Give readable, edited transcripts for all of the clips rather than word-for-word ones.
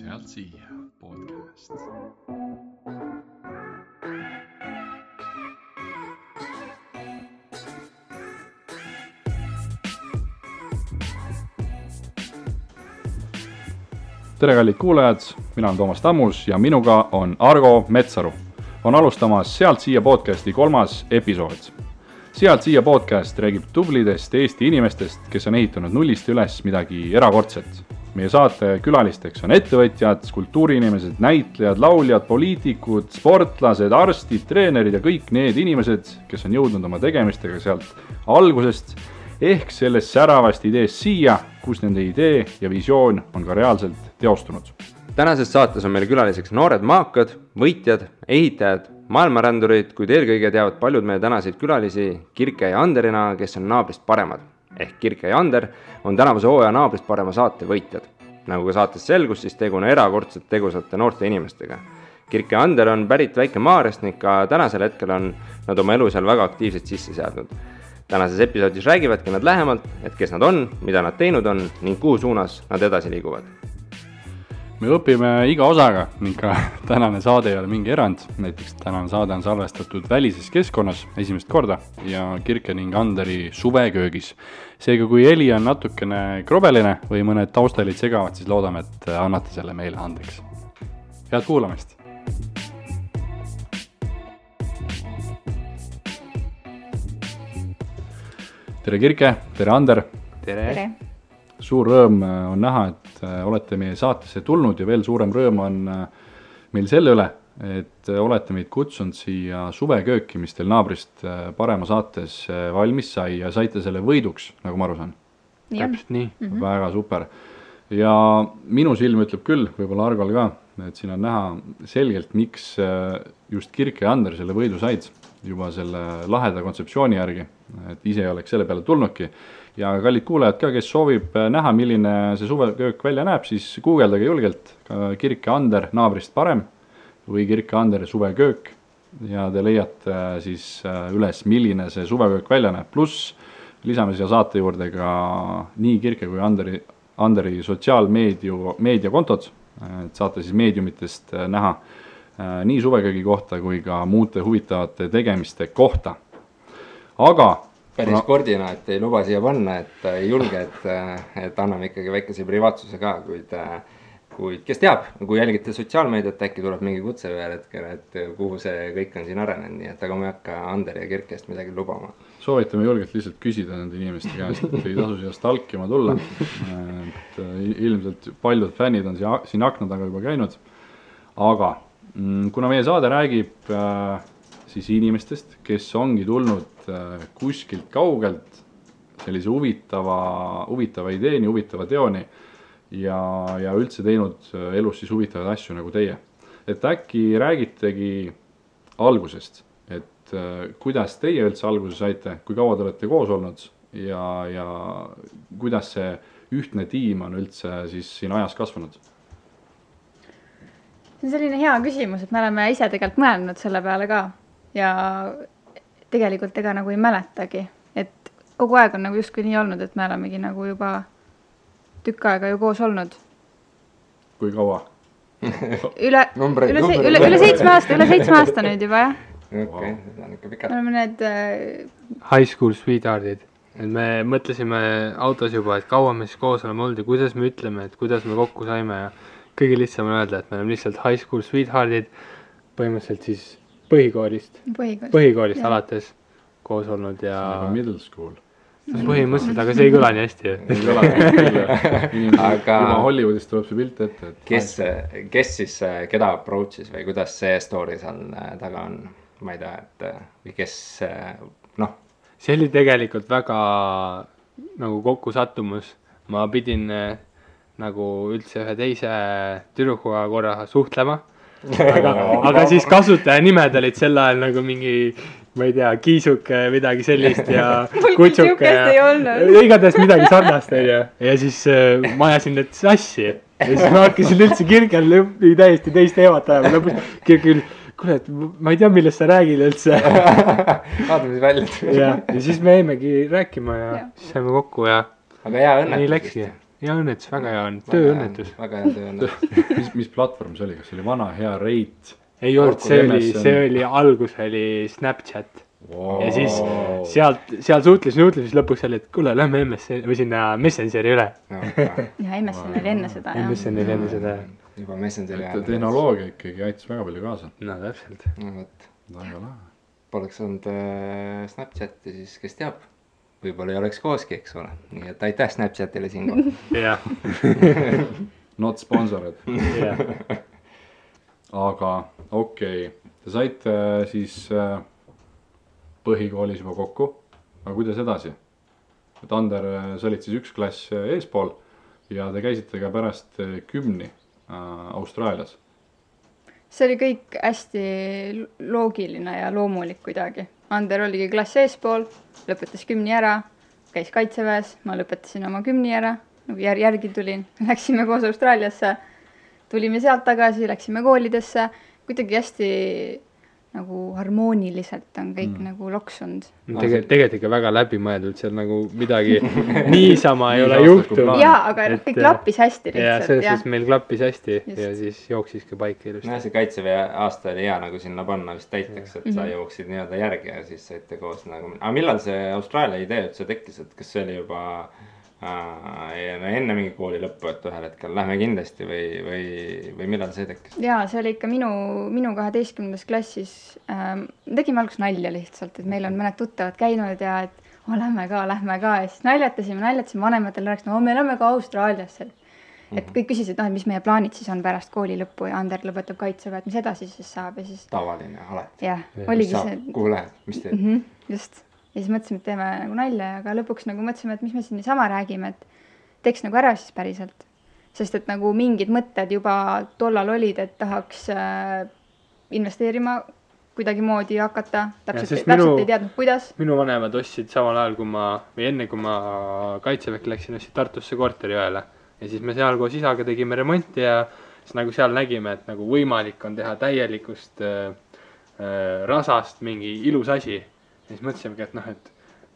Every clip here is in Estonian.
Sealt siia podcast. Tere kallid kuulajad, mina olen Toomas Tammus ja minuga on Argo Metsaru. On alustamas Sealt siia podcasti 3. episood. Sealt siia podcast räägib tublidest Eesti inimestest, kes on ehitanud nullist üles midagi erakordset. Meie saate külalisteks on ettevõtjad, kultuuriinimesed, näitlejad, lauljad, poliitikud, sportlased, arstid, treenerid ja kõik need inimesed, kes on jõudnud oma tegemistega sealt algusest ehk sellest säravast ideest siia, kus nende idee ja visioon on ka reaalselt teostunud. Tänases saates on meil külaliseks noored maakad, võitjad, ehitajad, maailmarändurid, kuid eelkõige teavad paljud meie tänaseid külalisi Kirke ja Anderina, kes on naabrist paremad. Ehk Kirke ja Ander on tänavuse hooaja naabrist parema saate võitjad. Nagu ka saates selgus, siis tegu on erakordselt tegusate noorte inimestega. Kirke ja Ander on pärit Väike-Maarjast ning ka tänasel hetkel on nad oma elu seal väga aktiivselt sisse seadnud. Tänases episoodis räägivadki nad lähemalt, et kes nad on, mida nad teinud on ning kuhu suunas nad edasi liiguvad. Me õpime iga osaga ning ka tänane saade ei ole mingi erand. Näiteks tänane saade on salvestatud välises keskkonnas esimest korda ja Kirke ning Anderi suveköögis. Seega kui heli on natukene krobeline või mõned taustalid segavad, siis loodame, et annate selle meile andeks. Head kuulamist! Tere Kirke, tere Ander! Tere! Suur rõõm on näha, et olete meie saatesse tulnud ja veel suurem rõõm on meil selle üle, et olete meid kutsunud siia suvekööki, mis teil naabrist parema saates valmis sai ja saite selle võiduks, nagu ma aru saan. Täpselt nii. Väga super. Ja minu silm ütleb küll, võib-olla Argol ka, et siin on näha selgelt, miks just Kirke ja Ander selle võidu said juba selle laheda kontseptsiooni järgi, et ise oleks selle peale tulnudki. Ja kallid kuulajad ka, kes soovib näha, milline see suveköök välja näeb, siis guugeldage julgelt Kirke Ander naabrist parem või Kirke Ander suveköök ja te leiate siis üles, milline see suveköök välja näeb. Pluss lisame siia saate juurde ka nii Kirke kui Anderi sotsiaalmeediakontod, et saate siis meediumitest näha nii suveköögi kohta kui ka muude huvitavate tegemiste kohta. Aga päris kordina, et ei luba siia panna, et ei julge, et anname ikkagi väikese privaatsuse ka, kuid kes teab, kui jälgite sotsiaalmeediat, äkki tuleb mingi kutse veel hetkel, et kuhu see kõik on siin arenenud, nii et aga ma ei hakka Ander ja Kirkest midagi lubama. Soovitame julgelt lihtsalt küsida nende inimeste käest, et ei tasu siia stalkima tulla. Et ilmselt paljud fännid on siin akna taga juba käinud, aga kuna meie saade räägib siis inimestest, kes ongi tulnud kuskilt kaugelt sellise huvitava ideeni, huvitava teoni ja üldse teinud elus siis huvitavaid asju nagu teie. Et äkki räägitegi algusest, et kuidas teie üldse alguse saite, kui kaua te olete koos olnud ja kuidas see ühtne tiim on üldse siis siin ajas kasvanud? See on selline hea küsimus, et me oleme ise tegelikult mõelnud selle peale ka ja tegelikult ega nagu ei mäletagi, et kogu aeg on nagu justkui nii olnud, et me olemegi nagu juba tükk aega ju koos olnud. Kui kaua? Üle 7 aasta nüüd juba, jah. Okei, seda on ikka pikalt. Me oleme need High school sweetheartid. Et me mõtlesime autos juba, et kaua me siis koos oleme olnud ja kuidas me ütleme, et kuidas me kokku saime ja kõige lihtsam on öelda, et me oleme lihtsalt high school sweetheartid, põhimõtteliselt siis põhikoolist alates koos olnud ja middle school. Põhimõtteliselt, aga see ei kõla nii hästi. Ei kõla nii hästi. Juba Hollywoodist tuleb see pilt ette. Kes siis, keda approach'is või kuidas see story seal taga on? Ma ei tea, et või kes, noh. See oli tegelikult väga nagu kokku sattumus. Ma pidin nagu üldse ühe teise tüdrukuga korra suhtlema. Aga siis kasutaja nimed olid sel ajal nagu mingi, ma ei tea, kiisuke, midagi sellist ja kutsuke ja igatahes midagi sarnast ja siis ma ajasin need sassi ja siis ma hakkasin üldse Kirkel täiesti teist teemat ajama lõpus Kirkel, kuule, et ma ei tea, millest sa räägid üldse. Vaatame siis välja. Ja siis me jäimegi rääkima ja siis saime kokku ja aga hea õnnetus. Nii läkski. hea õnnetus, väga hea on, tööõnnetus. väga hea tööõnnetus. mis platvorm see oli, kas see oli vana hea Reit? Ei olnud, see oli, algus oli Snapchat. Ja siis seal suhtles, siis lõpuks oli, et kuule, lähme MSN või sinna Messengeri üle. Ja MSN oli enne seda. MSN oli enne seda. Juba Messengeri ajal. Tehnoloogia ikkagi aitas väga palju kaasa. No täpselt. No võt. Väga lahe. Poleks olnud Snapchati, siis kes teab, võib-olla ei oleks kooski, eks ole. Nii et aitäh Snapchatile siinkohal. Jah. Not sponsored. Jah. Aga okei, te saite siis põhikoolis juba kokku, aga kuidas edasi? Et Ander, sa olid siis üks klass eespool ja te käisite ka pärast 10 Austraalias. See oli kõik hästi loogiline ja loomulik kuidagi. Ander oligi klass eespool, lõpetas 10 ära, käis kaitseväes, ma lõpetasin oma 10 ära, nagu järgi tulin, läksime koos Austraaliasse, tulime sealt tagasi, läksime koolidesse, kuidagi hästi nagu harmooniliselt on kõik nagu loksunud. Tegelikult ikka väga läbimõeldud, seal nagu midagi niisama ei ole juhtunud. Jaa, aga kõik klappis hästi lihtsalt. Ja selles meil klappis hästi ja siis jooksis ka paika ilusti. No see kaitseväe aasta oli hea nagu sinna panna vist täiteks, et sa jooksid nii-öelda järgi ja siis saite koos nagu. Aga millal see Austraalia idee üldse tekkis, et kas see oli juba enne mingi kooli lõppu, et ühel hetkel lähme kindlasti või millal see tekkis? Jaa, see oli ikka minu 12. klassis. Tegime alguses nalja lihtsalt, et meil on mõned tuttavad käinud ja et lähme ka ja siis naljatasime vanematel rääkis, me lähme ka Austraaliasse. Et kõik küsisid, et mis meie plaanid siis on pärast kooli lõppu ja Ander lõpetab kaitseväe, et mis edasi siis saab ja siis... Tavaline, alati. Jah, oligi see... Kuhu lähed, mis teed? Just. Ja siis mõtlesime, et teeme nagu nalja, aga lõpuks nagu mõtlesime, et mis me siin niisama räägime, et teeks nagu ära siis päriselt. Sest et nagu mingid mõtted juba tollal olid, et tahaks investeerima kuidagi moodi hakata, täpselt ei teadnud, kuidas. Minu vanemad ostsid samal ajal, enne kui ma kaitseväkke läksin, ostsid Tartusse korteri ühele. Ja siis me seal koos isaga tegime remonti ja siis nagu seal nägime, et nagu võimalik on teha täielikust rasast mingi ilus asi. Ja siis mõtlesimegi, et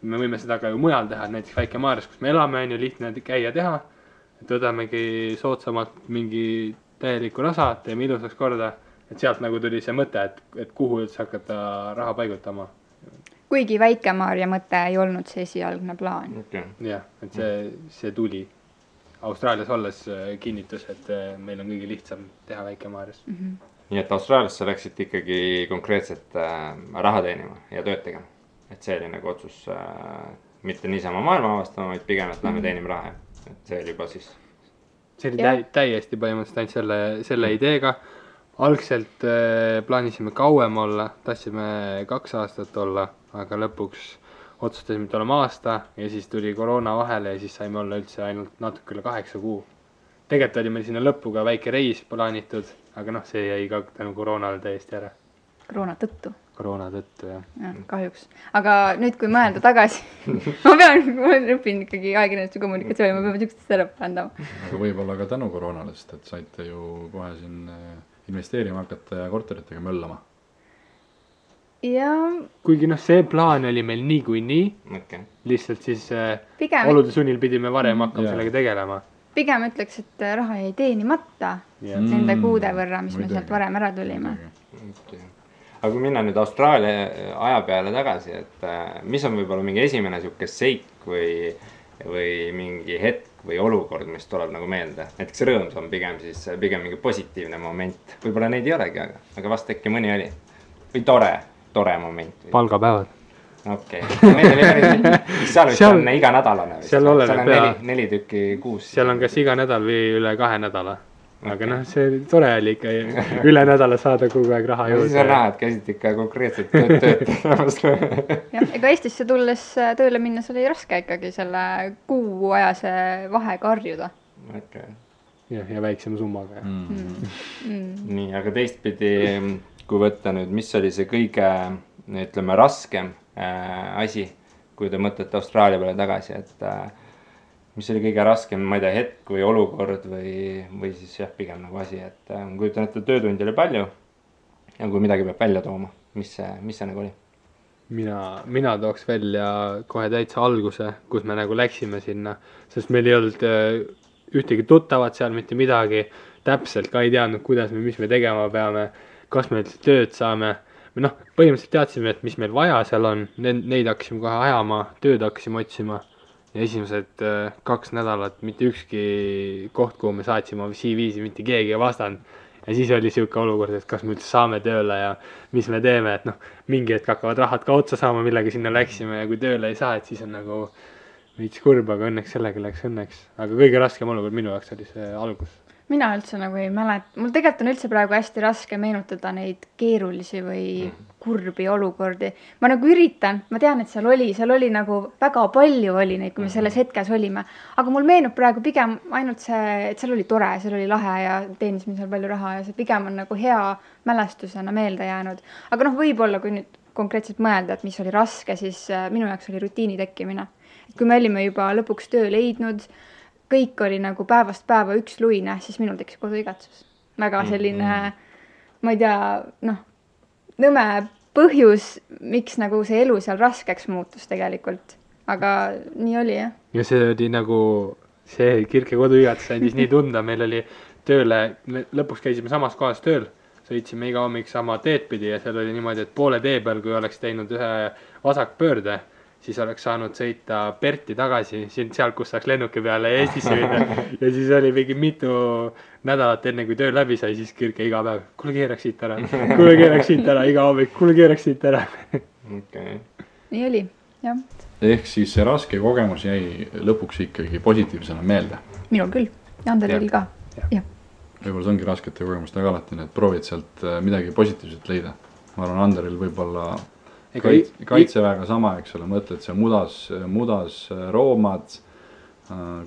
me võime seda ka ju mujal teha, näiteks Väike-Maarjas, kus me elame, on ju lihtne käia teha. Et võdamegi soodsamalt mingi täieliku rasa, teeme ilusaks korda. Et sealt nagu tuli see mõte, et kuhu üldse hakata raha paigutama. Kuigi Väike-Maarja mõte ei olnud see esialgne plaan. Okay. Jah, et see tuli Austraalias olles kinnitus, et meil on kõige lihtsam teha Väike-Maarjas. Nii et Austraaliasse läksid ikkagi konkreetselt raha teenima ja tööd tegema. Et see oli nagu otsus mitte niisama maailma avastama, vaid pigem, et lähme teenime raha. Et see oli juba siis... See oli täiesti põhimõtteliselt ainult selle ideega. Algselt plaanisime kauem olla, tahtsime 2 aastat olla, aga lõpuks otsustasime, et oleme aasta ja siis tuli koroona vahele ja siis saime olla üldse ainult natuke üle 8 kuu. Tegelikult oli meil sinna lõppu ka väike reis plaanitud, aga see jäi ka tänu koroonale täiesti ära. Koroona tõttu, jah. Ja, kahjuks. Aga nüüd, kui mõelda tagasi, ma õpin ikkagi ajakirjanduse kommunikatsiooni, ma peame üksteist ära parandama. Aga võib-olla ka tänu koroonale, sest et saite ju kohe siin investeerima hakata ja korteritega möllama. Ja... Kuigi see plaan oli meil nii, lihtsalt siis olude sunnil pidime varem hakkama sellega tegelema. Pigem ütleks, et raha jäi teenimata nende kuude võrra, mis me sealt varem ära tulime. Aga kui minna nüüd Austraalia aja peale tagasi, et mis on võib-olla mingi esimene siuke seik või mingi hetk või olukord, mis tuleb nagu meelde? Näiteks rõõms on pigem mingi positiivne moment. Võib-olla neid ei olegi, aga vast äkki mõni oli. Või tore moment. Palgapäevad. Okei. Seal vist on iga nädalane. Seal on 4 tükki kuus. Seal on kas iga nädal või üle 2 nädala. Aga see tore oli ikka üle nädala saada kogu aeg raha juurde. Siis on näha, et käisid ikka konkreetselt tööd. Ega Eestisse tulles tööle minnes oli raske ikkagi selle kuuajase vahega harjuda. Okay. Ja väiksema summaga. Nii, aga teistpidi, kui võtta nüüd, mis oli see kõige, ütleme, raskem asi, kui te mõtlete Austraalia peale tagasi, et mis oli kõige raskem, ma ei tea, hetk või olukord või siis pigem nagu asi, et kujutan ette töötundi oli palju ja kui midagi peab välja tooma, mis see nagu oli? Mina tooks välja kohe täitsa alguse, kus me nagu läksime sinna, sest meil ei olnud ühtegi tuttavat seal, mitte midagi, täpselt ka ei teadnud, mis me tegema peame, kas me üldse tööd saame. Me noh, põhimõtteliselt teadsime, et mis meil vaja seal on, neid hakkasime kohe ajama, tööd hakkasime otsima ja esimesed 2 nädalat mitte ükski koht, kuhu me saatsime CV-si, mitte keegi ei vastanud. Ja siis oli siuke olukord, et kas me üldse saame tööle ja mis me teeme, et noh, mingi hetk hakkavad rahad ka otsa saama, millega sinna läksime ja kui tööle ei saa, et siis on nagu veits kurb, aga õnneks sellega läks õnneks. Aga kõige raskem olukord minu jaoks oli see algus. Mina üldse nagu ei mäleta, mul tegelikult on üldse praegu hästi raske meenutada neid keerulisi või kurbi olukordi. Ma nagu üritan, ma tean, et seal oli nagu väga palju oli neid, kui me selles hetkes olime. Aga mul meenub praegu pigem ainult see, et seal oli tore, seal oli lahe ja teenisime seal palju raha ja see pigem on nagu hea mälestusena meelde jäänud. Aga noh, võib-olla kui nüüd konkreetselt mõelda, et mis oli raske, siis minu jaoks oli rutiini tekkimine. Et kui me olime juba lõpuks töö leidnud, kõik oli nagu päevast päeva üks luine, siis minul tekkis koduigatsus. Väga selline, ma ei tea, noh, nõme põhjus, miks nagu see elu seal raskeks muutus tegelikult. Aga nii oli, jah. Ja see oli nagu, see Kirke koduigatus andis nii tunda, meil oli tööle, me lõpuks käisime samas kohas tööl, sõitsime iga hommik sama teed pidi ja seal oli niimoodi, et poole tee peal, kui oleks teinud ühe vasakpöörde, siis oleks saanud sõita Perti tagasi, seal, kus saaks lennuki peale ja Eestisse minna. Ja siis oli mingi mitu nädalat enne, kui töö läbi sai, siis Kirke iga päev, kuule keeraks siit ära, iga hommik, kuule keeraks siit ära. Okay. Nii oli, jah. Ehk siis see raske kogemus jäi lõpuks ikkagi positiivsena meelde. Minul küll, ja Anderil ka. Ja. Võib-olla see ongi raskete kogemustega alati, et proovid sealt midagi positiivset leida. Ma arvan, Anderil võib-olla kaitseväega sama, eks ole, mõtled see mudas roomad,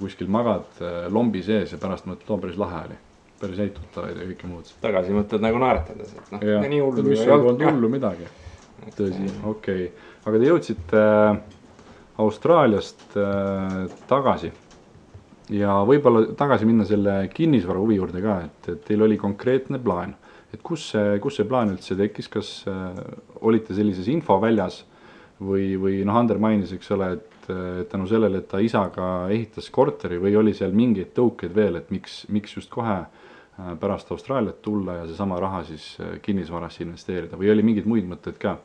kuskil magad lombi sees ja pärast mõtled, päris lahe oli. Päris häid tuttavaid ja kõike muud. Tagasi mõtled nagu naeratades, et noh, nii hullu. Mis ei olnud hullu midagi. Tõsi, okei. Aga te jõudsite Austraaliast tagasi ja võib-olla tagasi minna selle kinnisvara huvi juurde ka, et teil oli konkreetne plaan. Et kus see plaan üldse tekkis, kas olite sellises infoväljas või noh, Ander mainis, eks ole, et tänu sellele, et ta isaga ehitas korteri või oli seal mingeid tõukeid veel, et miks just kohe pärast Austraaliat tulla ja seesama raha siis kinnisvarasse investeerida või oli mingeid muid mõtteid ka?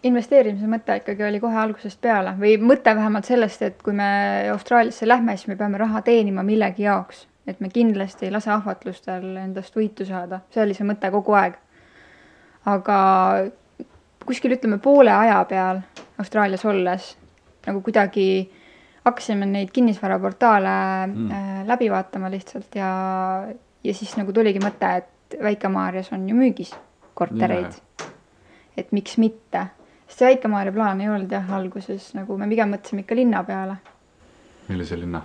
Investeerimise mõte ikkagi oli kohe algusest peale või mõte vähemalt sellest, et kui me Austraaliasse lähme, siis me peame raha teenima millegi jaoks. Et me kindlasti ei lase ahvatlustel endast võitu saada. See oli see mõte kogu aeg. Aga kuskil ütleme poole aja peal Austraalias olles nagu kuidagi hakkasime neid kinnisvaraportaale läbi vaatama lihtsalt ja siis nagu tuligi mõte, et Väike-Maarjas on ju müügis kortereid. Et miks mitte? Sest see Väike-Maarja plaan ei olnud jah alguses, nagu me pigem mõtlesime ikka linna peale. Millise linna?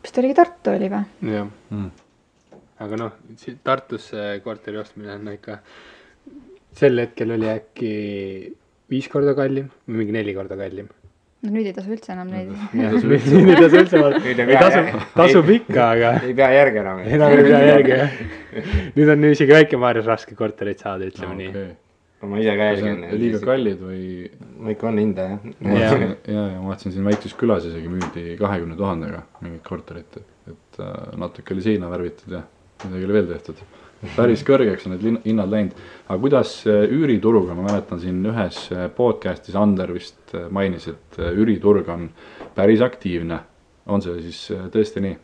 Kas ta oligi Tartu oli või? Jah. Aga noh, Tartusse korteri ostmine on ikka, sel hetkel oli äkki 5 korda kallim või mingi 4 korda kallim. No nüüd ei tasu üldse enam neid. Nüüd ei tasu üldse, tasub ikka, aga ei pea järgi enam. Enam ei pea järgi, jah. Nüüd on isegi Väike-Maarjas raske korterit saada, ütleme nii. Ma ise ka jälgin. Liiga kallid või? Ma ikka on hinda, jah. Ja ma vaatasin siin väikses külas isegi müüdi 20 000-ga mingit korterit, et natuke oli seina värvitud ja midagi oli veel tehtud. Päris kõrgeks on need hinnad läinud. Aga kuidas üürituruga, ma mäletan siin ühes podcastis Ander vist mainis, et üüriturg on päris aktiivne. On see siis tõesti nii?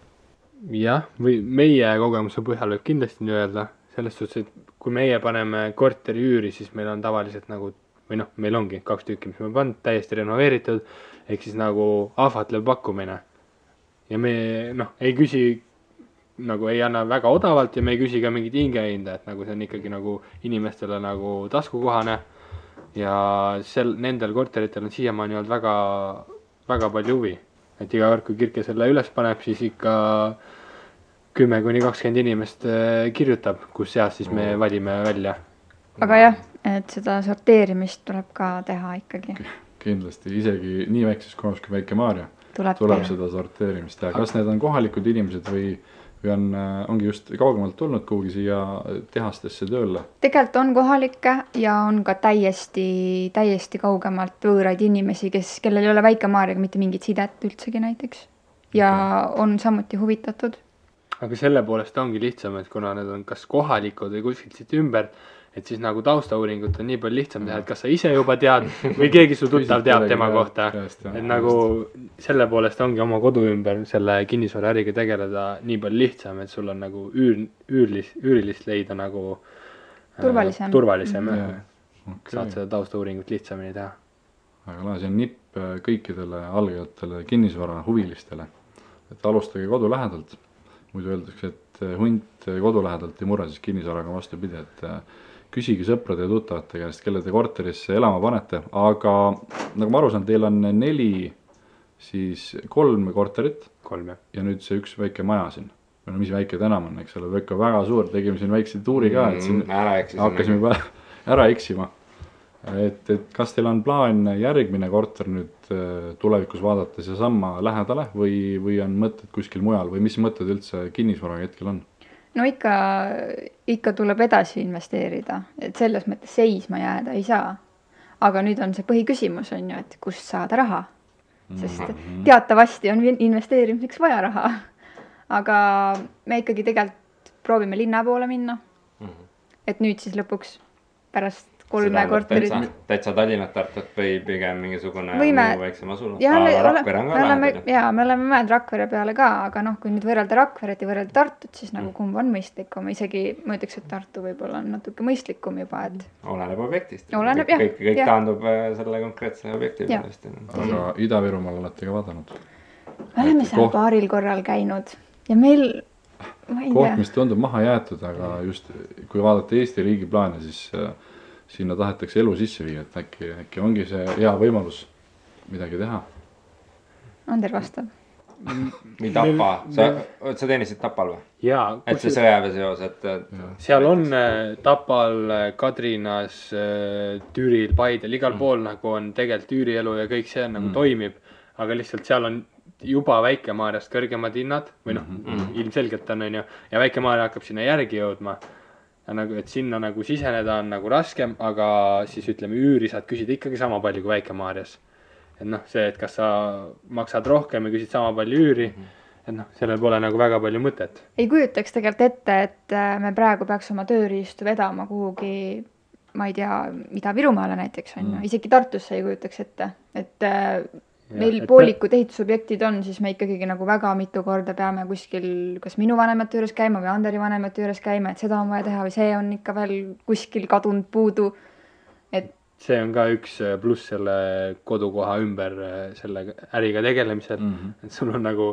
Jah, või meie kogemuse põhjal võib kindlasti nii öelda. Selles suhtes, et kui meie paneme korteri üüri, siis meil on tavaliselt nagu, või noh, meil ongi 2 tükki, mis me pannud, täiesti renoveeritud, ehk siis nagu ahvatlev pakkumine. Ja me noh, ei küsi, nagu ei anna väga odavalt ja me ei küsi ka mingit hingehinda, et nagu see on ikkagi nagu inimestele nagu taskukohane. Ja nendel korteritel on siiamaani olnud väga, väga palju huvi. Et iga kord, kui Kirke selle üles paneb, siis ikka 10-20 inimest kirjutab, kus seas siis me valime välja. Aga jah, et seda sorteerimist tuleb ka teha ikkagi. Kindlasti, isegi nii väikses kohas kui Väike-Maarja tuleb seda sorteerimist teha. Kas need on kohalikud inimesed või ongi just kaugemalt tulnud kuhugi siia tehastesse tööle? Tegelikult on kohalikke ja on ka täiesti kaugemalt võõraid inimesi, kellel ei ole Väike-Maarjaga mitte mingit sidet üldsegi näiteks. ja on samuti huvitatud. aga selle poolest ongi lihtsam, et kuna need on kas kohalikud või kuskilt siit ümber, et siis nagu taustauuringut on nii palju lihtsam teha, et kas sa ise juba tead või keegi su tuttav teab tema kohta. Et nagu selle poolest ongi oma kodu ümber selle kinnisvaraäriga tegeleda nii palju lihtsam, et sul on nagu üürilist leida nagu turvalisem. Saad seda taustauuringut lihtsamini teha. Aga lahe, see on nipp kõikidele algajatele kinnisvara huvilistele, et alustage kodu lähedalt. Muidu öeldakse, et hunt kodu lähedalt ei murra, siis kinnisvaraga vastupidi, et küsigi sõprade ja tuttavate käest, kelle te korterisse elama panete, aga nagu ma aru saan, teil on 3 korterit 3 ja nüüd see üks väike maja siin. No mis väike tänam on, eks ole, väga suur, tegime siin väikse tuuri ka, et siin hakkasime juba ära eksima. Et kas teil on plaan järgmine korter nüüd tulevikus vaadates ja samma lähedale või on mõtted kuskil mujal või mis mõtted üldse kinnisvaraga hetkel on? No ikka tuleb edasi investeerida, et selles mõttes seisma jääda ei saa. Aga nüüd on see põhiküsimus on ju, et kust saada raha, sest teatavasti on investeerimiseks vaja raha. Aga me ikkagi tegelikult proovime linna poole minna, et nüüd siis lõpuks pärast 3 korterit. Täitsa Tallinnat Tartut või pigem mingisugune muu väiksem asula? Rakvere on ka lahendada. Jaa, me oleme mõelnud Rakvere peale ka, aga kui nüüd võrrelda Rakveret ja võrrelda Tartut, siis nagu kumb on mõistlikum. Isegi ma ütleks, et Tartu võib-olla on natuke mõistlikum juba, et... Oleneb objektist. Oleneb, jah. Kõik taandub selle konkreetse objekti pealest. Aga Ida-Virumaal olete ka vaadanud? Me oleme seal paaril korral käinud ja meil... Koht, mis tundub maha jäetud, aga just kui vaadata Eesti riigi plaane, siis sinna tahetakse elu sisse viia, et äkki ongi see hea võimalus midagi teha. Ander vastab. Või Tapa, sa teenisid Tapal või? Jaa. Et see sõjaväe seos, et... Seal on Tapal, Kadrinas, Türil, Paidel, igal pool nagu on tegelikult üürielu ja kõik see nagu toimib, aga lihtsalt seal on juba Väike-Maarjast kõrgemad hinnad või ilmselgelt on ju, ja Väike-Maarja hakkab sinna järgi jõudma. Ja nagu, et sinna nagu siseneda on nagu raskem, aga siis ütleme üüri saad küsida ikkagi sama palju kui Väike-Maarjas. Et see, et kas sa maksad rohkem ja küsid sama palju üüri, et sellel pole nagu väga palju mõtet. Ei kujutaks tegelikult ette, et me praegu peaks oma tööriistu vedama kuhugi, ma ei tea, Ida-Virumaale näiteks on ju, isegi Tartusse ei kujutaks ette, et meil poolikud ehitusobjektid on, siis me ikkagi nagu väga mitu korda peame kuskil kas minu vanemate juures käima või Anderi vanemate juures käima, et seda on vaja teha või see on ikka veel kuskil kadunud puudu. Et see on ka üks pluss selle kodukoha ümber selle äriga tegelemisel, et sul on nagu,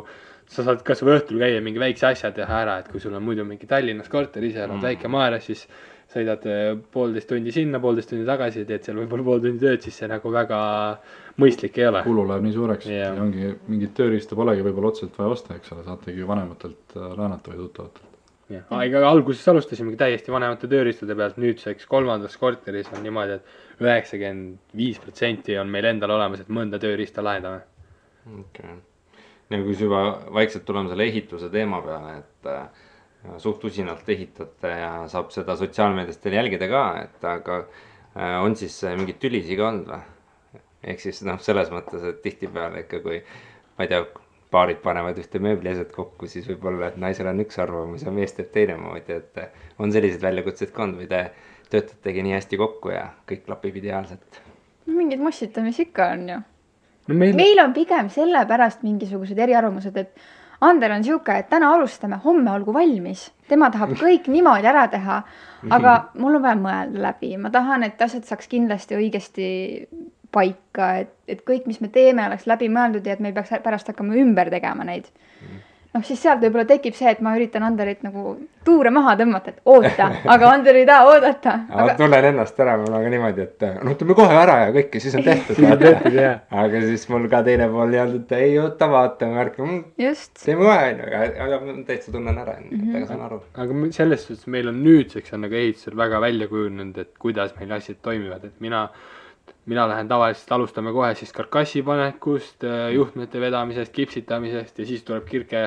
sa saad kas või õhtul käia mingi väikse asja teha ära, et kui sul on muidu mingi Tallinnas korter, ise elad Väike-Maarjas, siis sõidad 1,5 tundi sinna, 1,5 tundi tagasi, teed seal võib-olla 1,5 tundi tööd, siis see nagu väga mõistlik ei ole. Kulu läheb nii suureks ja ongi mingit tööriista polegi võib-olla otseselt vaja osta, eks ole, saategi vanematelt laenata või tuttavatelt. Aga alguses alustasimegi täiesti vanemate tööriistade pealt, nüüdseks 3. korteris on niimoodi, et 95% on meil endal olemas, et mõnda tööriista lahendame. Okay. Nagu kui juba vaikselt tuleme selle ehituse teema peale, et suht usinalt ehitate ja saab seda sotsiaalmeediast teil jälgida ka, et aga on siis mingid tülisi ka olnud või? Ehk siis selles mõttes, et tihtipeale ikka kui, ma ei tea, paarid panevad ühte mööbliaset kokku, siis võib-olla, et naisel on üks arvamus ja mees teeb teine moodi, et on sellised väljakutseid ka olnud või te töötategi nii hästi kokku ja kõik klapib ideaalselt? Mingid mossitamisi ikka on ju. Meil on pigem sellepärast mingisugused eriarvamused, et Ander on siuke, et täna alustame, homme olgu valmis. Tema tahab kõik niimoodi ära teha, aga mul on vaja mõelda läbi. Ma tahan, et asjad saaks kindlasti õigesti paika, et kõik, mis me teeme, oleks läbi mõeldud ja et me ei peaks pärast hakkama ümber tegema neid. Siis sealt võib-olla tekib see, et ma üritan Anderit nagu tuure maha tõmmata, et oota, aga Ander ei taha oodata. Aga... tunnen ennast ära, mul on ka niimoodi, et ütleme kohe ära ja kõike, siis on tehtud. Aga siis mul ka teine pool jäänud, et ei oota, vaatame, märkame, teeme kohe, aga täitsa tunnen ära, aga saan aru. Aga selles suhtes meil on nüüdseks on nagu ehitusel väga välja kujunenud, et kuidas meil asjad toimivad, et mina lähen tavaliselt, alustame kohe siis karkassi panekust, juhtmete vedamisest, kipsitamisest ja siis tuleb Kirke,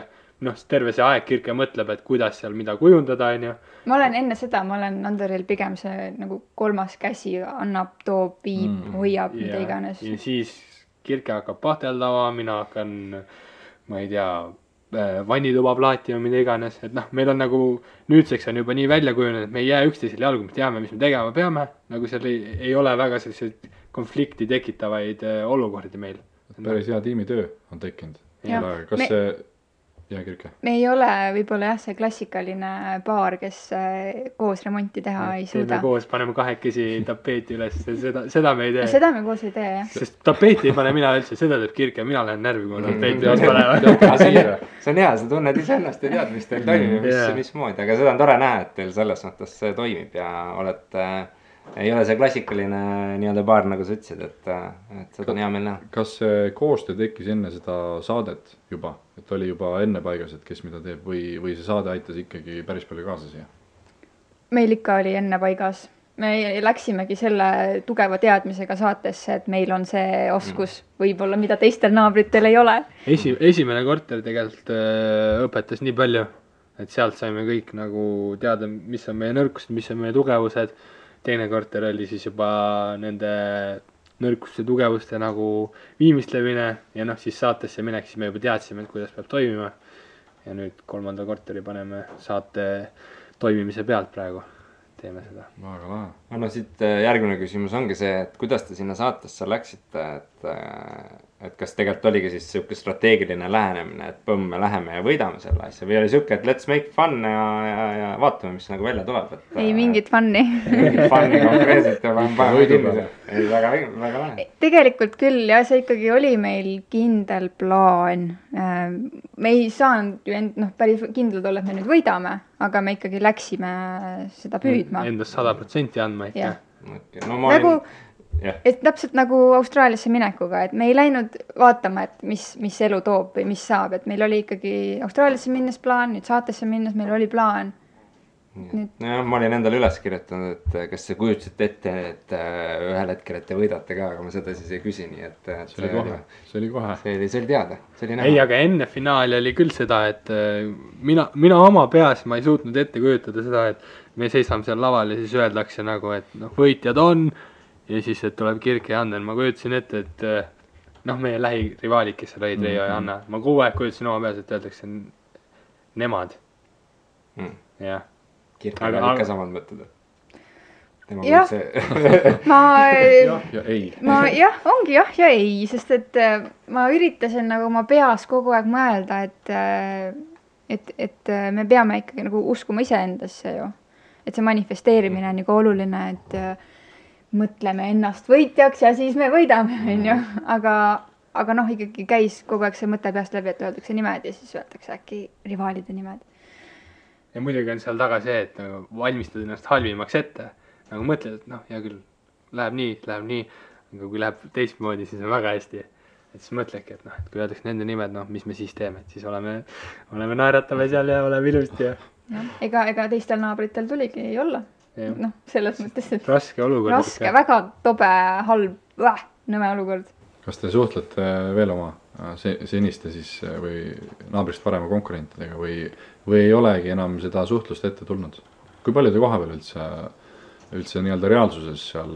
terve see aeg Kirke mõtleb, et kuidas seal mida kujundada, on ju. Ma olen enne seda, ma olen Anderil pigem see nagu 3. käsi annab, toob, viib, hoiab, mida iganes. Ja siis Kirke hakkab pahteldama, mina hakkan ma ei tea, vannituba plaati või mida iganes, et noh, meil on nagu nüüdseks on juba nii välja kujunenud, et me ei jää üksteisele jalgu, me teame, mis me tegema peame, nagu seal ei ole väga selliseid konflikti tekitavaid olukordi meil. Päris hea tiimitöö on tekkinud. Kas see, jah, Kirke? Me ei ole võib-olla jah, see klassikaline paar, kes koos remonti teha ei suuda. Teeme koos, paneme kahekesi tapeeti üles, seda me ei tee. Seda me koos ei tee, jah. Sest tapeeti ei pane mina üldse, seda teeb Kirke, mina lähen närvi, kui ma tapeeti üles panevad. See on hea, sa tunned iseennast ja tead, mis teil toimib, mismoodi, aga seda on tore näha, et teil selles mõttes see toimib ja olete... Ei ole see klassikaline nii-öelda baar, nagu sa ütlesid, et seda on hea meil näha. Kas see koostöö tekkis enne seda saadet juba? Et oli juba enne paigas, et kes mida teeb või see saade aitas ikkagi päris palju kaasa siia? Meil ikka oli enne paigas. Me läksimegi selle tugeva teadmisega saatesse, et meil on see oskus võib-olla, mida teistel naabritel ei ole. Esimene korter tegelikult õpetas nii palju, et sealt saime kõik nagu teada, mis on meie nõrkused, mis on meie tugevused. Teine korter oli siis juba nende nõrkuste tugevuste nagu viimistlemine ja noh, siis saatesse minek, siis me juba teadsime, et kuidas peab toimima. Ja nüüd 3. korteri paneme saate toimimise pealt praegu. Teeme seda. Väga lahe. No siit järgmine küsimus ongi see, et kuidas te sinna saatesse läksite, et kas tegelikult oligi siis siuke strateegiline lähenemine, et põmm, me läheme ja võidame selle asja või oli siuke, et let's make fun ja vaatame, mis nagu välja tuleb. Ei mingit fun'i. Mingit fun'i konkreetselt ja paneme kinni. Ei, väga lahe. Tegelikult küll, ja see ikkagi oli meil kindel plaan. Me ei saanud ju päris kindlad olla, et me nüüd võidame, aga me ikkagi läksime seda püüdma. Endast 100% andma ikka. Okay. No, nagu, et täpselt nagu Austraaliasse minekuga, et me ei läinud vaatama, et mis elu toob või mis saab, et meil oli ikkagi Austraaliasse minnes plaan, nüüd saatesse minnes meil oli plaan. Nojah, ma olin endale üles kirjutanud, et kas see kujutasid ette, et ühel hetkel, et te võidate ka, aga ma seda siis ei küsi, nii et see oli kohe. See oli teada, see oli näha. Ei, aga enne finaali oli küll seda, et mina oma peas ma ei suutnud ette kujutada seda, et me seisame seal laval ja siis öeldakse nagu, et noh, võitjad on ja siis, et tuleb Kirke ja Ander. Ma kujutasin ette, et noh, meie lähirivaalid, kes seal olid, Reijo ja Anna. Ma kogu aeg kujutasin oma peas, et öeldakse nemad. Jah. Kirke on ikka samad mõtted. Jah, ongi jah ja ei, sest et ma üritasin nagu oma peas kogu aeg mõelda, et me peame ikkagi nagu uskuma iseendasse ju. Et see manifesteerimine on nagu oluline, et mõtleme ennast võitjaks ja siis me võidame, onju. Aga noh, ikkagi käis kogu aeg see mõte peast läbi, et öeldakse nimed ja siis öeldakse äkki rivaalide nimed. Ja muidugi on seal taga see, et nagu valmistad ennast halvimaks ette. Nagu mõtled, et noh, hea küll, läheb nii, aga kui läheb teistmoodi, siis on väga hästi. Et siis mõtledki, et noh, et kui öeldaks nende nimed, noh, mis me siis teeme, et siis oleme naeratame seal ja oleme ilusti ja... Ega teistel naabritel tuligi ei olla. Noh, selles mõttes, et... Raske olukord. Raske, väga tobe, halb, nõme olukord. Kas te suhtlete veel oma seniste siis või naabrist parema konkurentidega või ei olegi enam seda suhtlust ette tulnud? Kui palju te kohapeal üldse nii-öelda reaalsuses seal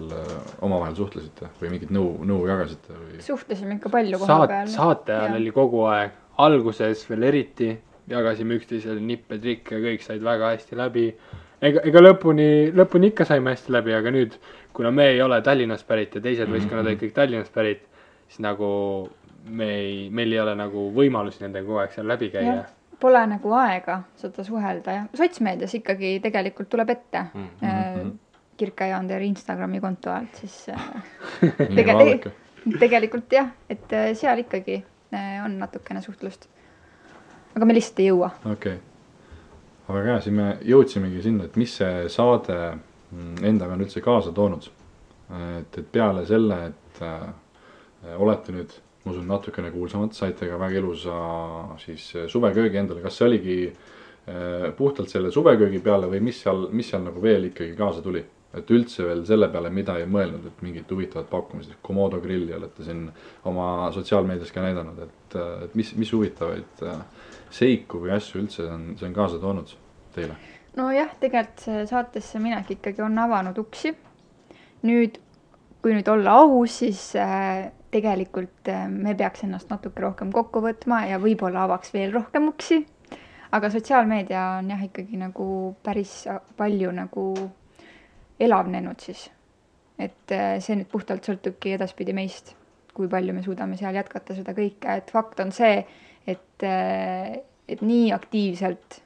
omavahel suhtlesite või mingit nõu jagasite? Suhtlesime ikka palju kohapeal. Saate ajal oli kogu aeg, alguses veel eriti, jagasime üksteisele nippe, trikke, kõik said väga hästi läbi. Ega lõpuni ikka saime hästi läbi, aga nüüd, kuna me ei ole Tallinnast pärit ja teised võistkonnad olid kõik Tallinnast pärit, siis nagu meil ei ole nagu võimalusi nendega kogu aeg seal läbi käia. Pole nagu aega seda suhelda ja sotsmeedias ikkagi tegelikult tuleb ette Kirke ja Ander Instagrami konto alt, siis tegelikult jah, et seal ikkagi on natukene suhtlust. Aga me lihtsalt ei jõua. Okei. Aga siin me jõudsimegi sinna, et mis see saade endaga on üldse kaasa toonud. Et peale selle, et olete nüüd, ma usun, natukene kuulsamad, saite ka väga ilusa siis suveköögi endale. Kas see oligi puhtalt selle suveköögi peale või mis seal nagu veel ikkagi kaasa tuli? Et üldse veel selle peale, mida ei mõelnud, et mingid huvitavad pakkumised, Komodo grilli olete siin oma sotsiaalmeedias ka näidanud, et mis huvitavaid seiku või asju üldse see on kaasa toonud teile? No jah, tegelikult see saatesse minek ikkagi on avanud uksi. Nüüd, kui nüüd olla aus, siis tegelikult me peaks ennast natuke rohkem kokku võtma ja võib-olla avaks veel rohkem uksi. Aga sotsiaalmeedia on jah ikkagi nagu päris palju nagu elavnenud siis. Et see nüüd puhtalt sõltubki edaspidi meist, kui palju me suudame seal jätkata seda kõike. Et fakt on see, et nii aktiivselt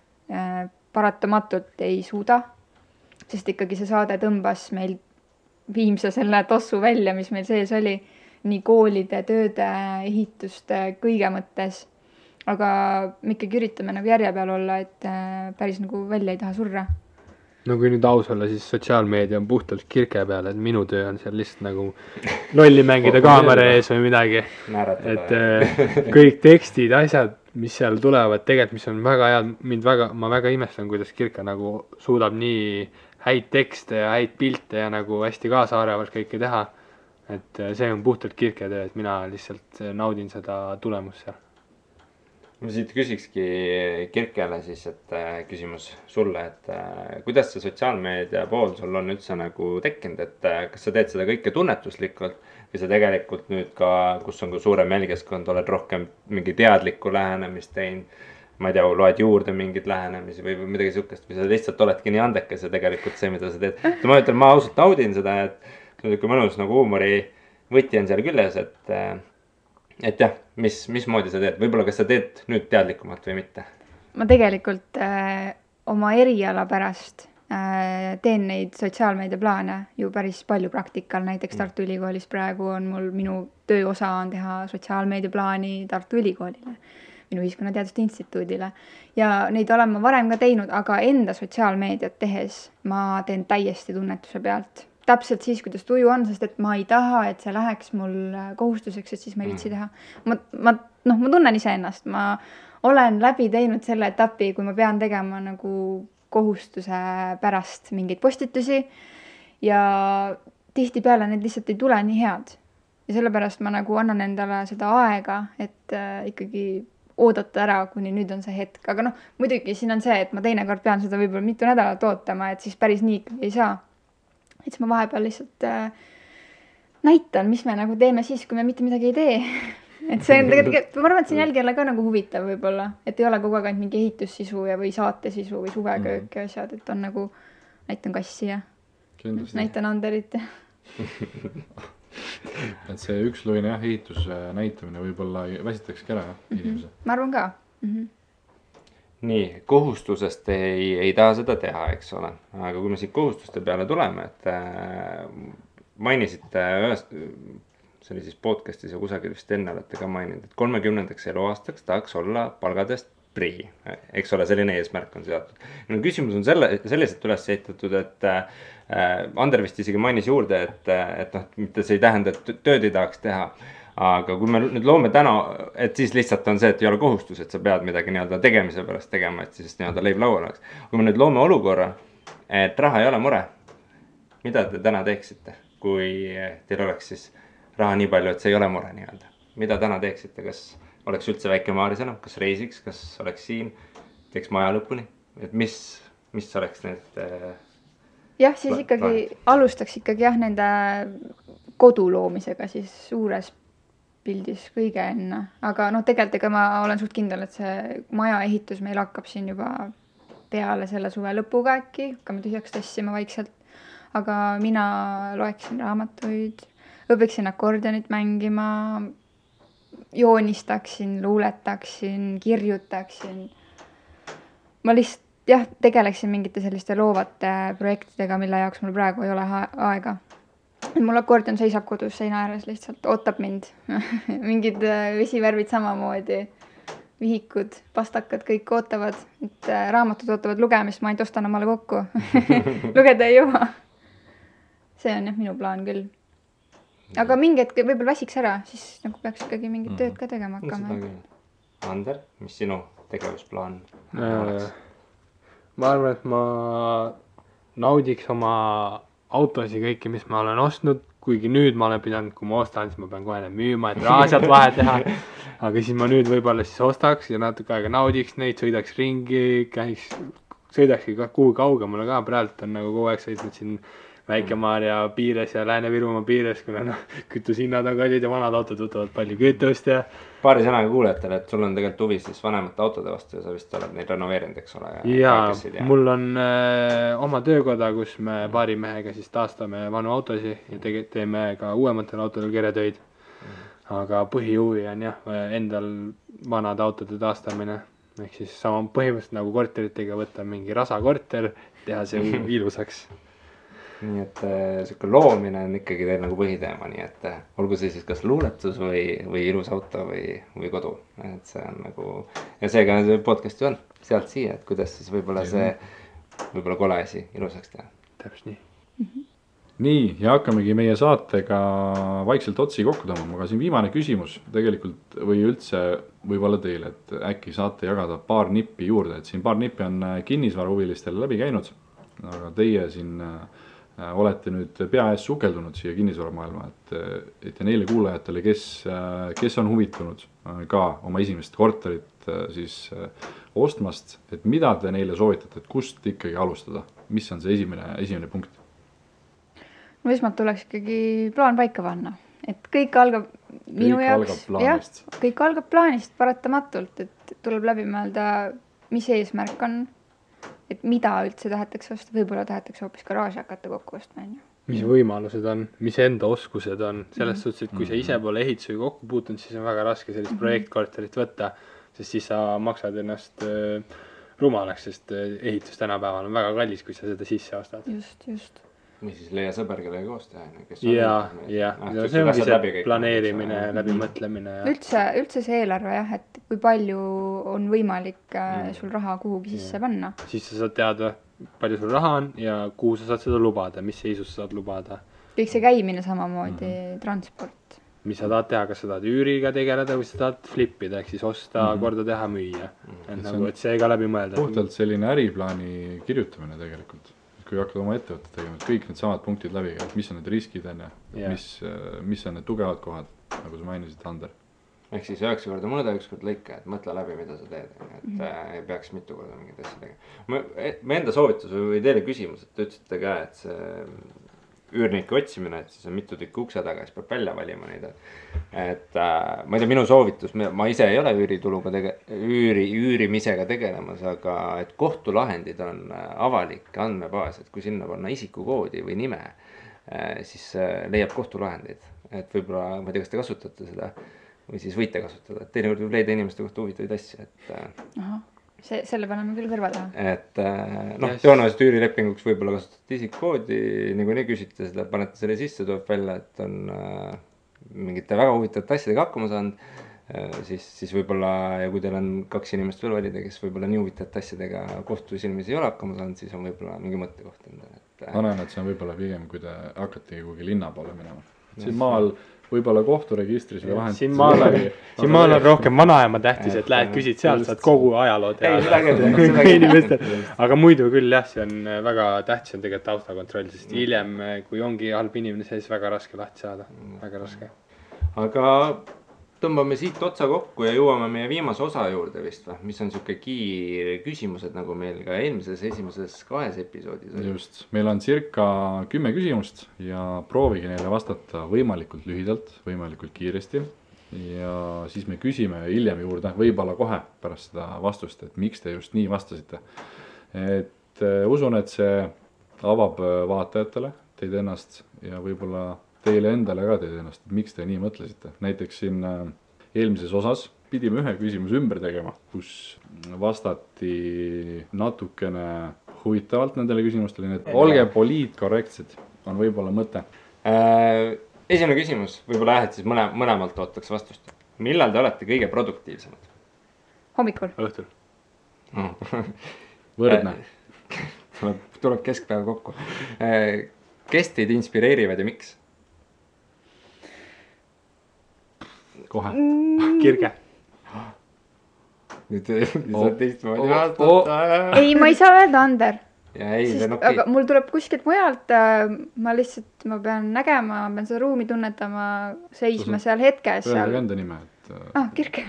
paratamatult ei suuda, sest ikkagi see saade tõmbas meil viimse selle tossu välja, mis meil sees oli, nii koolide, tööde, ehituste, kõige mõttes. Aga me ikkagi üritame nagu järje peal olla, et päris nagu välja ei taha surra. No kui nüüd aus olla, siis sotsiaalmeedia on puhtalt kirke peal, et minu töö on seal lihtsalt nagu lolli mängida kaamera ees või midagi. Et kõik tekstid, asjad, mis seal tulevad, tegelikult mis on väga head, ma väga imestan, kuidas kirke nagu suudab nii häid tekste ja häid pilte ja nagu hästi kaasaarevalt kõike teha. Et see on puhtalt kirke töö, et mina lihtsalt naudin seda tulemust seal. Ma siit küsikski Kirkele siis, et küsimus sulle, et kuidas see sotsiaalmeedia pool sul on üldse nagu tekkinud, et kas sa teed seda kõike tunnetuslikult või sa tegelikult nüüd ka, kus on ka suurem jälgijaskond, oled rohkem mingi teadlikku lähenemist teinud, ma ei tea, loed juurde mingeid lähenemisi või midagi sihukest või sa lihtsalt oledki nii andekas ja tegelikult see, mida sa teed. Ma ütlen, ma ausalt naudin seda, et see on mõnus nagu huumori võti on seal küljes, et jah, mismoodi sa teed? Võib-olla kas sa teed nüüd teadlikumalt või mitte? Ma tegelikult oma eriala pärast teen neid sotsiaalmeedia plaane ju päris palju praktikal. Näiteks Tartu Ülikoolis praegu on minu tööosa on teha sotsiaalmeedia plaani Tartu Ülikoolile, minu Ühiskonnateaduste Instituudile. Ja neid olen ma varem ka teinud, aga enda sotsiaalmeediat tehes ma teen täiesti tunnetuse pealt. Täpselt siis, kuidas tuju on, sest et ma ei taha, et see läheks mul kohustuseks, et siis ma ei viitsi teha. Ma tunnen ise ennast, ma olen läbi teinud selle etapi, kui ma pean tegema nagu kohustuse pärast mingeid postitusi ja tihtipeale need lihtsalt ei tule nii head. Ja sellepärast ma nagu annan endale seda aega, et ikkagi oodata ära, kuni nüüd on see hetk. Aga muidugi siin on see, et ma teinekord pean seda võib-olla mitu nädalat ootama, et siis päris nii ikkagi ei saa. Et ma vahepeal lihtsalt näitan, mis me nagu teeme siis, kui me mitte midagi ei tee. Et see on tegelikult, ma arvan, et see on jälgijale ka nagu huvitav võib-olla, et ei ole kogu aeg ainult mingi ehitussisu ja või saatesisu või suveköök ja asjad, et on nagu näitan kassi ja näitan Anderit. Et see üksluine ehituse näitamine võib-olla väsitakski ära inimese. Ma arvan ka. Nii, kohustusest ei taha seda teha, eks ole. Aga kui me siit kohustuste peale tuleme, et mainisite ühest, see oli siis podcastis ja kusagil vist enne olete ka maininud, et 30. eluaastaks tahaks olla palgadest prii. Eks ole, selline eesmärk on seatud. No, küsimus on selliselt üles ehitatud, et Ander vist isegi mainis juurde, et mitte see ei tähenda, et tööd ei tahaks teha. Aga kui me nüüd loome täna, et siis lihtsalt on see, et ei ole kohustus, et sa pead midagi nii-öelda tegemise pärast tegema, et siis nii-öelda leib laual oleks. Kui me nüüd loome olukorra, et raha ei ole mure, mida te täna teeksite, kui teil oleks siis raha nii palju, et see ei ole mure nii-öelda? Mida täna teeksite, kas oleks üldse väike Maarisena, kas reisiks, kas oleks siin, teeks maja lõpuni, et mis oleks need jah, siis ikkagi alustaks ikkagi jah nende kodu loomisega siis suures pildis kõige enne, aga tegelikult ma olen suht kindel, et see maja ehitus meil hakkab siin juba peale selle suve lõpuga äkki, hakkame tühjaks tassima vaikselt, aga mina loeksin raamatuid, õpiksin akordionit mängima, joonistaksin, luuletaksin, kirjutaksin. Ma lihtsalt tegeleksin mingite selliste loovate projektidega, mille jaoks mul praegu ei ole aega. Mul akordion seisab kodus seina ääres lihtsalt, ootab mind. Mingid vesivärvid samamoodi, vihikud, pastakad, kõik ootavad, et raamatud ootavad lugemist, ma ainult ostan omale kokku. Lugeda ei jõua. See on jah minu plaan küll. Aga mingi hetk võib-olla väsiks ära, siis nagu peaks ikkagi mingit tööd ka tegema hakkama. Ander, mis sinu tegevusplaan oleks? Ma arvan, et ma naudiks oma autosi kõiki, mis ma olen ostnud, kuigi nüüd ma olen pidanud, kui ma ostan, siis ma pean kohe need müüma, et raha sealt vahe teha. Aga siis ma nüüd võib-olla siis ostaks ja natuke aega naudiks neid, sõidaks ringi, sõidakski kuhu kaugemale ka, praegu on nagu kogu aeg sõidnud siin Väike-Maarja piires ja Lääne-Virumaa piires, kuna noh, kütushinnad on kallid ja vanad autod võtavad palju kütust ja paari sõnaga kuulajatele, et sul on tegelikult huvi siis vanemate autode vastu ja sa vist oled neid renoveerinud, eks ole? Mul on oma töökoda, kus me paari mehega siis taastame vanu autosid ja teeme ka uuematel autodel keretöid. Aga põhihuvi on jah, endal vanade autode taastamine. Ehk siis sama põhimõtteliselt nagu korteritega võtta mingi rasakorter, teha see ilusaks. Nii et siuke loomine on ikkagi teil nagu põhiteema, nii et olgu see siis kas luuletus või ilus auto või kodu. Et see on nagu, ja seega see podcast ju on sealt siia, et kuidas siis võib-olla see võib-olla kole asi ilusaks teha. Täpselt nii. Nii, ja hakkamegi meie saatega vaikselt otsi kokku tõmbama, aga siin viimane küsimus tegelikult või üldse võib-olla teile, et äkki saate jagada paar nippi juurde, et siin paar nippi on kinnisvarahuvilistele läbi käinud, aga teie siin olete nüüd pea ees sukeldunud siia kinnisvaramaailma, et ja neile kuulajatele, kes on huvitunud ka oma esimest korterit siis ostmast, et mida te neile soovitate, et kust ikkagi alustada, mis on see esimene punkt? No esmalt tuleks ikkagi plaan paika panna, et kõik algab minu jaoks, kõik algab plaanist paratamatult, et tuleb läbi mõelda, mis eesmärk on, et mida üldse tahetakse osta, võib-olla tahetakse hoopis garaaži hakata kokku ostma. Mis võimalused on, mis enda oskused on, selles suhtes, et kui sa ise pole ehitusega kokku puutunud, siis on väga raske sellist projektkorterit võtta, sest siis sa maksad ennast rumalaks, sest ehitus tänapäeval on väga kallis, kui sa seda sisse ostad. Just. Või siis leia sõber, kellega koos teha. Ja see ongi see planeerimine, läbimõtlemine. Üldse see eelarve jah, et kui palju on võimalik sul raha kuhugi sisse panna. Siis sa saad teada, palju sul raha on ja kuhu sa saad seda lubada, mis seisus sa saad lubada. Kõik see käimine samamoodi, transport. Mis sa tahad teha, kas sa tahad üüriga tegeleda või sa tahad flippida, ehk siis osta, korda teha, müüa. Et see ka läbi mõelda. Puhtalt selline äriplaani kirjutamine tegelikult. Kui hakkad oma ettevõtte tegema, et kõik need samad punktid läbi, et mis on need riskid enne, mis on need tugevad kohad, nagu sa mainisid, Ander. Ehk siis 9 korda mõõda, 1 kord lõika, et mõtle läbi, mida sa teed, et ei peaks mitu korda mingid asja tegema. Me enda soovitus või teile küsimus, et te ütlesite ka, et see üürnike otsimine, et siis on mitu tükki ukse taga, siis peab välja valima neid. Et ma ei tea, minu soovitus, ma ise ei ole üürituluga üürimisega tegelemas, aga et kohtulahendid on avalik andmebaas, et kui sinna panna isikukoodi või nime, siis leiab kohtulahendeid. Et võib-olla, ma ei tea, kas te kasutate seda või siis võite kasutada, et teinekord võib leida inimeste kohta huvitavaid asju, et selle paneme küll kõrva taha. Et tõenäoliselt üürilepinguks võib-olla kasutate isikukoodi, niikuinii küsite seda, panete selle sisse, tuleb välja, et on mingite väga huvitavate asjadega hakkama saanud, siis võib-olla, ja kui teil on 2 inimest veel valida, kes võib-olla nii huvitavate asjadega kohtusilmis ei ole hakkama saanud, siis on võib-olla mingi mõttekoht endale. Ma näen, et see on võib-olla pigem, kui te hakkate kuhugi linna poole minema. Siin maal võib-olla kohturegistris või vahend. Siin maal on rohkem vanaema tähtis, et lähed küsid sealt, saad kogu ajaloo teada. Aga muidu küll jah, see on väga tähtis on tegelikult taustakontroll, sest hiljem, kui ongi halb inimene, siis väga raske lahti saada. Väga raske. Aga tõmbame siit otsa kokku ja jõuame meie viimase osa juurde vist või? Mis on siuke kiire küsimused, nagu meil ka esimeses 2 episoodis oli. Just, meil on circa 10 küsimust ja proovige neile vastata võimalikult lühidalt, võimalikult kiiresti. Ja siis me küsime hiljem juurde, võib-olla kohe pärast seda vastust, et miks te just nii vastasite. Et usun, et see avab vaatajatele teid ennast ja võib-olla teile endale ka teid ennast, et miks te nii mõtlesite. Näiteks siin eelmises osas pidime ühe küsimuse ümber tegema, kus vastati natukene huvitavalt nendele küsimustele, nii et olge poliitkorrektsed, on võib-olla mõte. Esimene küsimus, võib-olla et siis mõlemalt ootaks vastust. Millal te olete kõige produktiivsemad? Hommikul. Õhtul. Võrdne. Tuleb keskpäev kokku. Kes teid inspireerivad ja miks? Kohe. Kirge. Nüüd saad teistmoodi vastata. Ei, ma ei saa öelda, Ander. Aga mul tuleb kuskilt mujalt, ma pean nägema, ma pean seda ruumi tunnetama, seisma seal hetkes. Öelge enda nime. Kirke.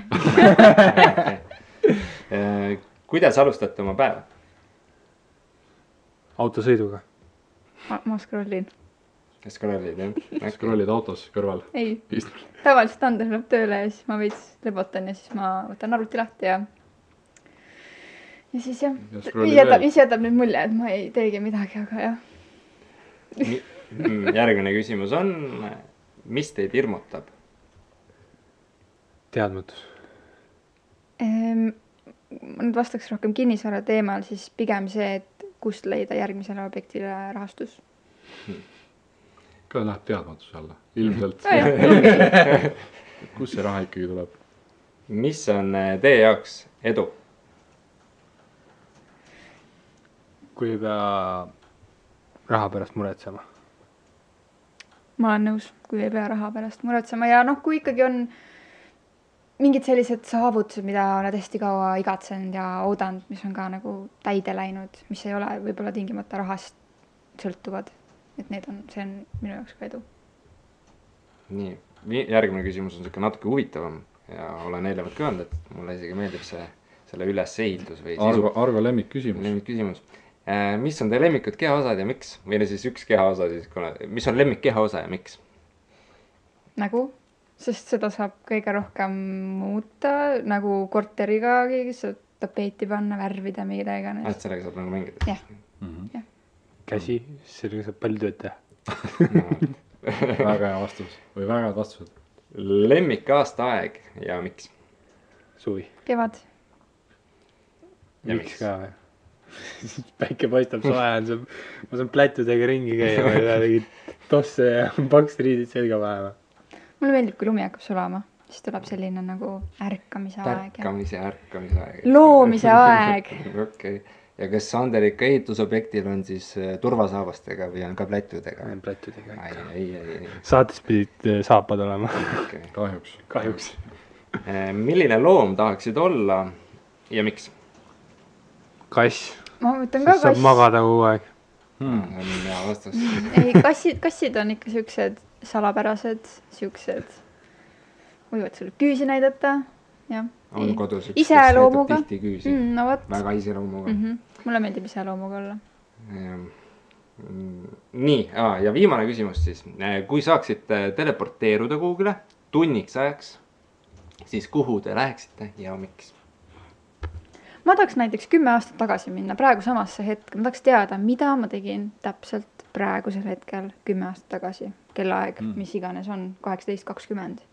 Kuidas alustate oma päeva? Autosõiduga. ma scrollin. Scrollid, jah? Scrollid autos kõrval. Ei, tavaliselt Ander läheb tööle ja siis ma veits lebotan ja siis ma võtan arvuti lahti ja siis jah, jätab nüüd mulje, et ma ei teegi midagi, aga jah. Järgmine küsimus on, mis teid hirmutab? Teadmatus. Ma nüüd vastaks rohkem kinnisvara teemal, siis pigem see, et kust leida järgmisele objektile rahastus. Ka läheb teadmatuse alla, ilmselt. Kus see raha ikkagi tuleb? Mis on teie jaoks edu? Kui ei pea raha pärast muretsema. Ma olen nõus, kui ei pea raha pärast muretsema ja kui ikkagi on mingid sellised saavutused, mida oled hästi kaua igatsenud ja oodanud, mis on ka nagu täide läinud, mis ei ole võib-olla tingimata rahast sõltuvad. Et see on minu jaoks ka edu. Nii, järgmine küsimus on selline natuke huvitavam ja olen eelnevalt ka öelnud, et mulle isegi meeldib selle ülesehitus või Argo lemmikküsimus. Lemmikküsimus. Mis on teie lemmikud kehaosad ja miks? Või siis üks kehaosa siis, mis on lemmik kehaosa ja miks? Nagu? Sest seda saab kõige rohkem muuta, nagu korteriga saab tapeeti panna, värvida, mida iganes. Et sellega saab nagu mängida? Jah. Käsi, sellega saab palju tööd teha. Väga hea vastus või väga head vastused. Lemmik aastaaeg ja miks? Suvi. Kevad. Ja miks ka või? Päike paistab soe on, ma saan plätudega ringi käia, ma ei taha tegid tosse ja paks riidid selga panema. Mulle meeldib, kui lumi hakkab sulama, siis tuleb selline nagu ärkamise aeg. Ärkamise aeg. Loomise aeg. Okei. Ja kas Sander ikka ehitusobjektil on siis turvasaabastega või on ka plätudega? Plätudega. Ei. Saates pidid saapad olema. Okay. Kahjuks. Milline loom tahaksid olla ja miks? Kass. Ma mõtlen ka saab magada kogu aeg. On hea vastus. Ei, kassid on ikka siuksed salapärased, siuksed võivad sulle küüsi näidata. Ja. On kodus üks, kes näitab tihti küüsi. No võt. Väga iseloomuga. Mulle meeldib iseloomuga olla. Nii, ja viimane küsimus siis. Kui saaksite teleporteeruda kuhugile tunniks ajaks, siis kuhu te läheksite ja miks? Ma tahaks näiteks 10 aastat tagasi minna praegu samasse hetke. Ma tahaks teada, mida ma tegin täpselt praegusel hetkel 10 aastat tagasi. Kellaaeg, mis iganes on, 18:20.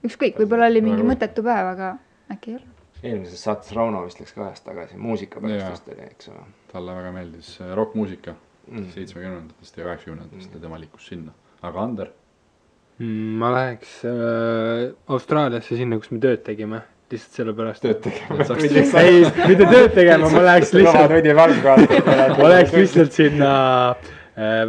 Ükskõik, võib-olla oli mingi mõttetu päev, aga äkki ei ole. Eelmises saates Rauno vist läks ka ajast tagasi. Muusika pärast oli, eks ole. Talle väga meeldis rockmuusika 70-ndatest ja 80-ndatest ja tema liikus sinna. Aga Ander? Ma läheks Austraaliasse sinna, kus me tööd tegime. Lihtsalt selle pärast. Tööd tegema. Ei, mitte tööd tegema, ma läheks lihtsalt sinna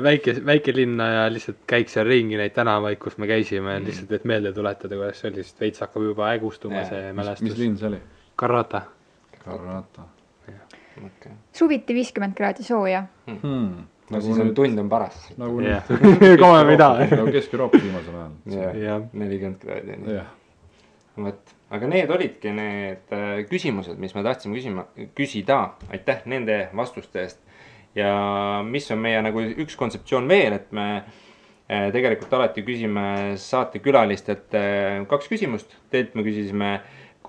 väike linna ja lihtsalt käiks seal ringi neid tänavaid, kus me käisime lihtsalt, et meelde tuletada, kuidas see oli, sest veits hakkab juba ägustuma see mälestus. Mis linn see oli? Karrata. Suviti 50 kraadi sooja. No siis on tund on paras. Nagu Kesk-Euroopa viimasel ajal. 40 kraadi. Aga need olidki need küsimused, mis me tahtsime küsida. Aitäh nende vastuste eest. Ja mis on meie nagu üks kontseptsioon veel, et me tegelikult alati küsime saatekülalistelt 2 küsimust. Teilt me küsisime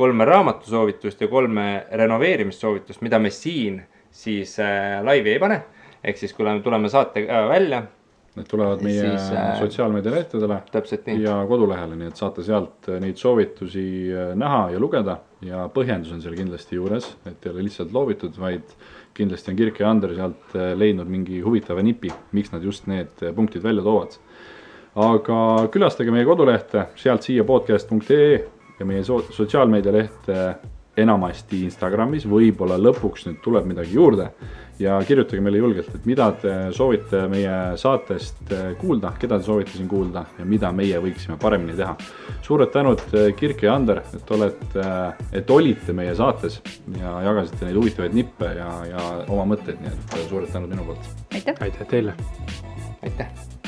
3 raamatusoovitust ja 3 renoveerimissoovitust, mida me siin siis laivi ei pane. Ehk siis kui tuleme saate välja. Need tulevad meie sotsiaalmeedia lehtedele ja kodulehele, nii et saate sealt neid soovitusi näha ja lugeda. Ja põhjendus on seal kindlasti juures, et ei ole lihtsalt loovitud, vaid kindlasti on Kirke ja Ander sealt leidnud mingi huvitava nipi, miks nad just need punktid välja toovad. Aga külastage meie kodulehte, sealt siia podcast.ee ja meie sotsiaalmeedia lehte enamasti Instagramis, võib-olla lõpuks nüüd tuleb midagi juurde. Ja kirjutage meile julgelt, et mida te soovite meie saatest kuulda, keda te soovite siin kuulda ja mida meie võiksime paremini teha. Suured tänud Kirke ja Ander, et olite meie saates ja jagasite neid huvitavaid nippe ja oma mõtteid, nii et suured tänud minu poolt. Aitäh! Aitäh teile! Aitäh!